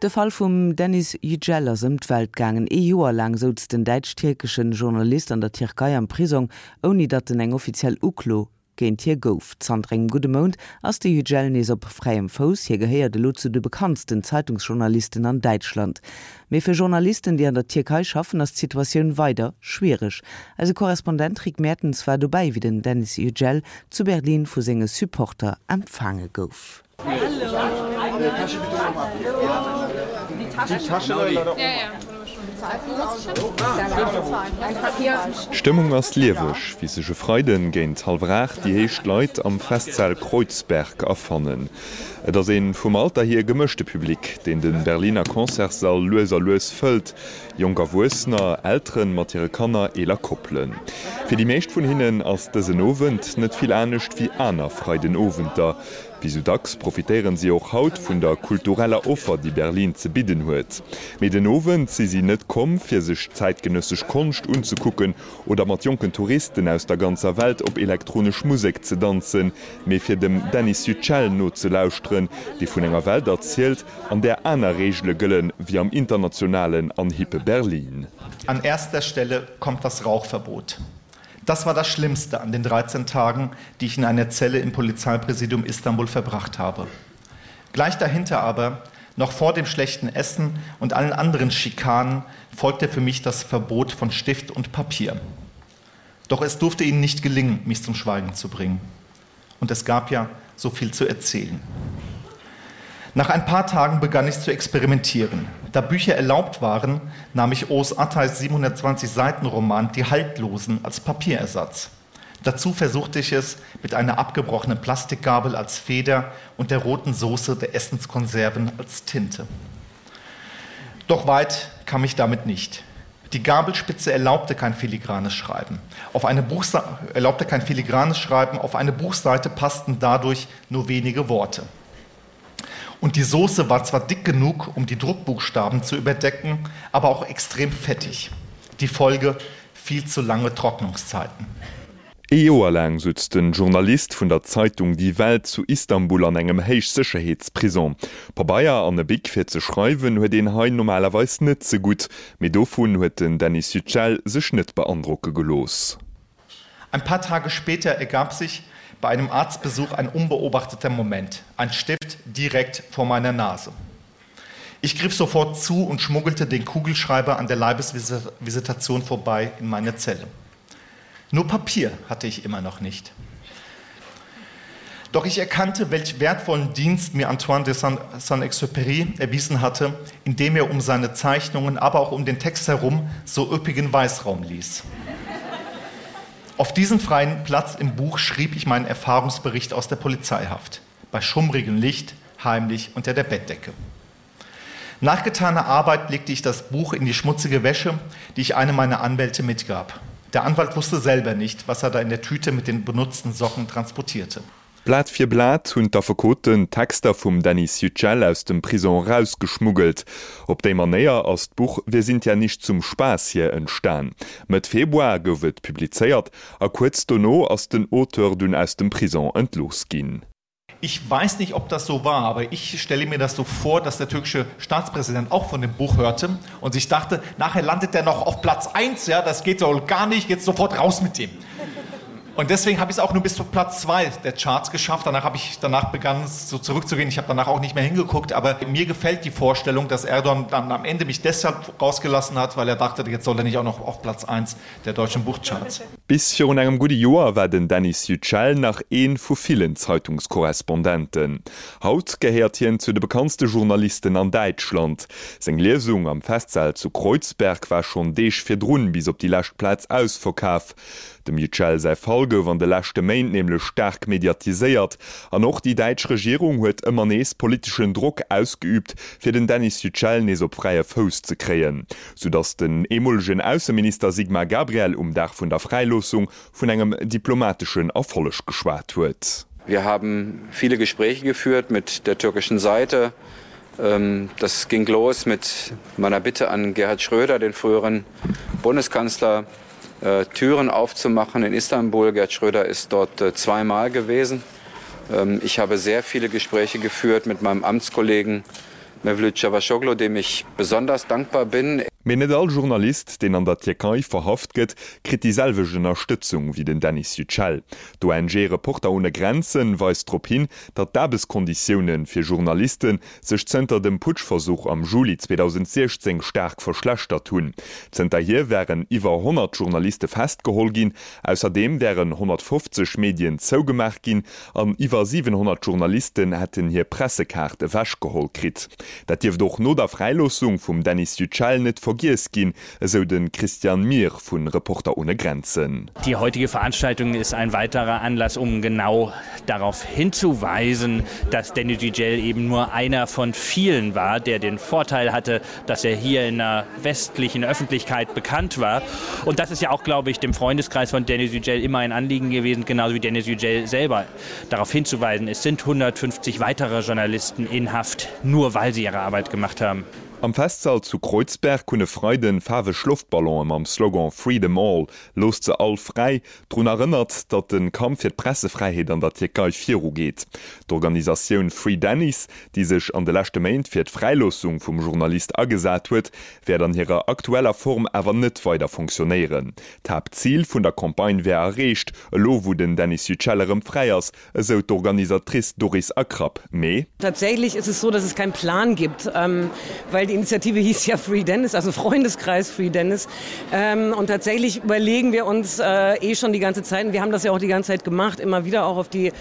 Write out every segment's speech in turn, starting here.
De Fall vum Deniz Yücel ass ëm d'Welt gaangen. Ee Joer laang souz den däitsch-tierkeschen Journalist an der Tierkei am Prisong, ouni datt en eng offiziell Uklo géint hie gouf. Zanter engem gudde Mount ass de Yücel nees op fräiem Fouss. Hie gehéiert elo zu de bekanntsten Zeitungsjournalisten an Däitschland. Mee fir Journalisten, déi an der Tierkei schaffen, ass d'Situatioun weider schwiereg. Eise Korrespondent Rick Mertens war dobäi, wéi den Deniz Yücel zu Berlin vu senge Supporter empfaange gouf. D'Stëmmung ass lieweg, wéi sech e Freiden géint hallwer 8 déi éischt Leit am Festsaal Kreuzberg afannen. Et ass ee vum Alter hier gemëschte Public, deen de Berliner Concertssall lues a lues fëllt. Jonk Erwuessener, Elteren mat hire Kanner, eeler Koppelen. Fir déi meescht vun hinnen ass dësen Owend net vill anescht wéi aner Freidenowenter. Wéi sou dacks profitéieren si och haut vun der kultureller Offer, déi Berlin ze bidden huet. Mee den Owend si si net komm, fir sech zäitgenëssesch Konscht unzekucken oder mat jonken Touristen aus der ganzer Welt op elektronesch Musek ze danzen, mee fir dem Deniz Yücel nozelauschteren, dee vun enger Welt erzielt, an där aner Reegele gëllen, wéi am internationalen an hippe Berlin. An erster Stelle kommt das Rauchverbot. Das war das Schlimmste an den 13 Tagen, die ich in einer Zelle im Polizeipräsidium Istanbul verbracht habe. Gleich dahinter aber, noch vor dem schlechten Essen und allen anderen Schikanen, folgte für mich das Verbot von Stift und Papier. Doch es durfte ihnen nicht gelingen, mich zum Schweigen zu bringen. Und es gab ja so viel zu erzählen. Nach ein paar Tagen begann ich zu experimentieren. Da Bücher erlaubt waren, nahm ich Os Attais 720 Seiten Roman Die Haltlosen als Papierersatz. Dazu versuchte ich es mit einer abgebrochenen Plastikgabel als Feder und der roten Soße der Essenskonserven als Tinte. Doch weit kam ich damit nicht. Die Gabelspitze erlaubte kein filigranes Schreiben. Auf eine erlaubte kein filigranes Schreiben, auf eine Buchseite passten dadurch nur wenige Worte. Und die Soße war zwar dick genug, um die Druckbuchstaben zu überdecken, aber auch extrem fettig. Die Folge viel zu lange Trocknungszeiten. Ee Joer laang sutz de Journalist vun der Zeitung Die Welt zu Istanbul an engem Héichsécherheetsprisong. Pabeier an e Bic fir ze schreiwen huet een hei normalerweis net ze gutt, mee dovun huet den Deniz Yücel sech net beandrocke gelooss. Ein paar Tage später ergab sich bei einem Arztbesuch ein unbeobachteter Moment, ein Stift direkt vor meiner Nase. Ich griff sofort zu und schmuggelte den Kugelschreiber an der Leibesvisitation vorbei in meine Zelle. Nur Papier hatte ich immer noch nicht. Doch ich erkannte, welch wertvollen Dienst mir Antoine de Saint-Exupéry erwiesen hatte, indem er um seine Zeichnungen, aber auch um den Text herum so üppigen Weißraum ließ. Auf diesen freien Platz im Buch schrieb ich meinen Erfahrungsbericht aus der Polizeihaft, bei schummrigem Licht, heimlich unter der Bettdecke. Nach getaner Arbeit legte ich das Buch in die schmutzige Wäsche, die ich einem meiner Anwälte mitgab. Der Anwalt wusste selber nicht, was er da in der Tüte mit den benutzten Socken transportierte. Blat fir Blat hunn d'Affekoten d'Texter vum Deniz Yücel aus dem Prison erausgeschmuggelt. Op déi Manéier ass d'Buch Wir sind ja nicht zum Spaß hier entstan. Mëtt Februar gouf et publizéiert a kuerz dono ass den Auteur dunn aus dem Prison entlooss ginn. Ich weiß nicht, ob das so war, aber ich stelle mir das so vor, dass der türkische Staatspräsident auch von dem Buch hörte und sich dachte, nachher landet er noch auf Platz 1, ja, das geht so gar nicht, jetzt sofort raus mit dem. Und deswegen habe ich es auch nur bis zu Platz 2 der Charts geschafft. Danach habe ich danach begann es so zurückzugehen. Ich habe danach auch nicht mehr hingeguckt, aber mir gefällt die Vorstellung, dass Erdogan dann am Ende mich deshalb rausgelassen hat, weil er dachte, jetzt soll er nicht auch noch auf Platz 1 der deutschen Buchcharts. Bis virun engem gudde Joer war den Deniz Yücel nach ee vu villen Zeitungskorrespondenten. Haut gehéiert hien zu de bekanntste Journalisten an Däitschland. Seng Liesung am Festsaal zu Kreuzberg war schonn Deeg virdrun bis op déi lescht Plaz ausverkaf. Dem Yücel säi Fall gouf an de leschte Méint nämlech staark mediatiséiert an och déi däitsch Regierung huet ëmmer nees politeschen Drock ausgeüübt, fir den Deniz Yücel nees op fräie Fouss ze kréien. sou datt den eemolegen Ausseminister Sigmar Gabriel um Dag vun der Fräiloossung vun engem diplomateschen Erfolleg geschwat huet. Wir haben viele Gespräche geführt mit der türkischen Seite. Das ging los mit meiner Bitte an Gerhard Schröder, den früheren Bundeskanzler, Türen aufzumachen in Istanbul. Gerhard Schröder ist dort zweimal gewesen. Ich habe sehr viele Gespräche geführt mit meinem Amtskollegen. Mevlüt Cavusoglu, dem ich besonders dankbar bin. Mee net all Journalist, deen an der Tierkei verhaft gëtt, kritt déi selwecht Ënnerstëtzung wéi den Deniz Yücel. D'ONG Reporter ohne Grenzen weist drop hin, datt d'Aarbechtskonditioune fir Journaliste sech zënter dem Putschversuch am Juli 2016 staark verschlechtert hunn. Zënterhier wären iwwer 100 Journaliste festgeholl ginn, ausserdeem wären 150 Medien zougemaach ginn an iwwer 700 Journalisten hätten hir Pressekaart ewechgeholl kritt. Dat dierft och no der Fräiloossung vum Deniz Yücel net vergiess ginn, esou de Christian Mir vu Reporter ohne Grenzen. Die heutige Veranstaltung ist ein weiterer Anlass, um genau darauf hinzuweisen, dass Deniz Yücel eben nur einer von vielen war, der den Vorteil hatte, dass er hier in der westlichen Öffentlichkeit bekannt war. Und das ist ja auch, glaube ich, dem Freundeskreis von Deniz Yücel immer ein Anliegen gewesen, genauso wie Deniz Yücel selber darauf hinzuweisen. Es sind 150 weitere Journalisten in Haft, nur weil sie ihre Arbeit gemacht haben. Am Festsall zu Kreuzberg hunn e Freiden faarweg Loftballonen mam Slogan Free them all, Loosst se all fräi, drun erënnert, datt de Kampf fir d'Pressefräiheet an der Tierkei virugeet. D'Organisatioun Free Deniz, déi sech an de leschte Méint fir d'Fräiloossung vum Journalist agesat huet, wäert an hirer aktueller Form awer net weider fonctionnéieren. D'Haaptzil vun der Campagne wär erreecht, elo wou den Deniz Yücel erëm fräi ass, esou d'Organisatrice Doris Akrap. Mee. Tatsächlich ist es so, dass es keinen Plan gibt, weil die Initiative hieß ja Free Deniz, also Freundeskreis Free Deniz. Und tatsächlich überlegen wir uns eh schon die ganze Zeit, und wir haben das ja auch die ganze Zeit gemacht, immer wieder auch auf die,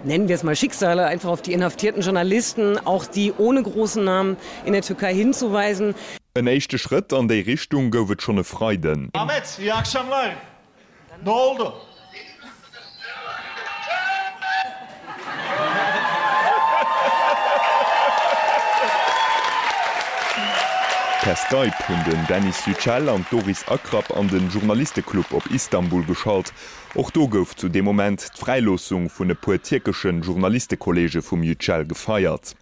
nennen wir es mal Schicksale, einfach auf die inhaftierten Journalisten, auch die ohne großen Namen in der Türkei hinzuweisen. En éischte Schrëtt an déi Richtung gouf et schonn e Freiden. Ahmet, iyi akşamlar. Ne oldu? Per Skype hunn den Deniz Yücel an d'Doris Akrap an de Journalisteclub op Istanbul geschalt. Och do gouf zu deem Moment d'Fräiloossung vun e puer tierkesche Journalistekolleege vum Yücel gefeiert.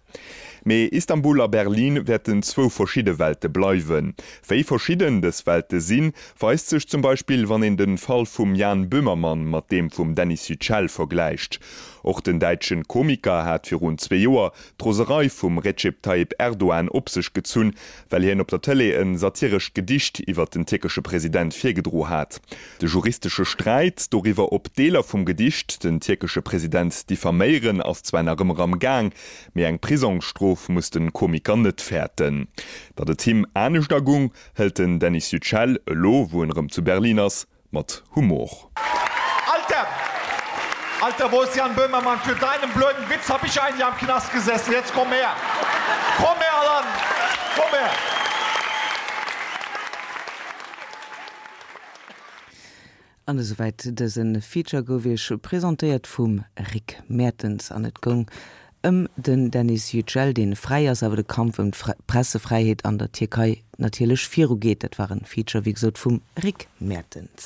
Mee Istanbul a Berlin wäerten zwou verschidde Welte bleiwen. Wéi verschidden dës Welte sinn, weist sech zum Beispill, wann een de Fall vum Jan Böhmermann mat deem vum Deniz Yücel vergläicht. Och den däitschen Komiker hat virun zwee Joer d'Roserei vum Recep Tayyip Erdogan op sech gezunn, well hien op der Tëlee e satirescht Gedicht iwwer den tierkesche President virgedro hat. De juristesche Sträit doriwwer, ob Deeler vum Gedicht den tierkesche President diffaméieren, ass zwar nach ëmmer am Gaang, mee eng Prisongsstrof muss de Komiker net fäerten. Datt et him anescht agung, hëlt den Deniz Yücel, elo wou en erëm zu Berlin ass, mat Humor. Alter! Alter, wo ist Jan Böhmermann? Für deinen blöden Witz hab ich ein Jahr im Knast gesessen. Jetzt komm her! Komm her, Alan! Komm her! An esouwäit dëse Feature gouf iech presentéiert vum Rick Mertens an et goung ëm den Deniz Yücel, dee fräi ass, awer de Kampf ëm d'Pressefräiheet an der Tierkei natierlech virugeet. Dat war en Feature, wéi gesot, vum Rick Mertens.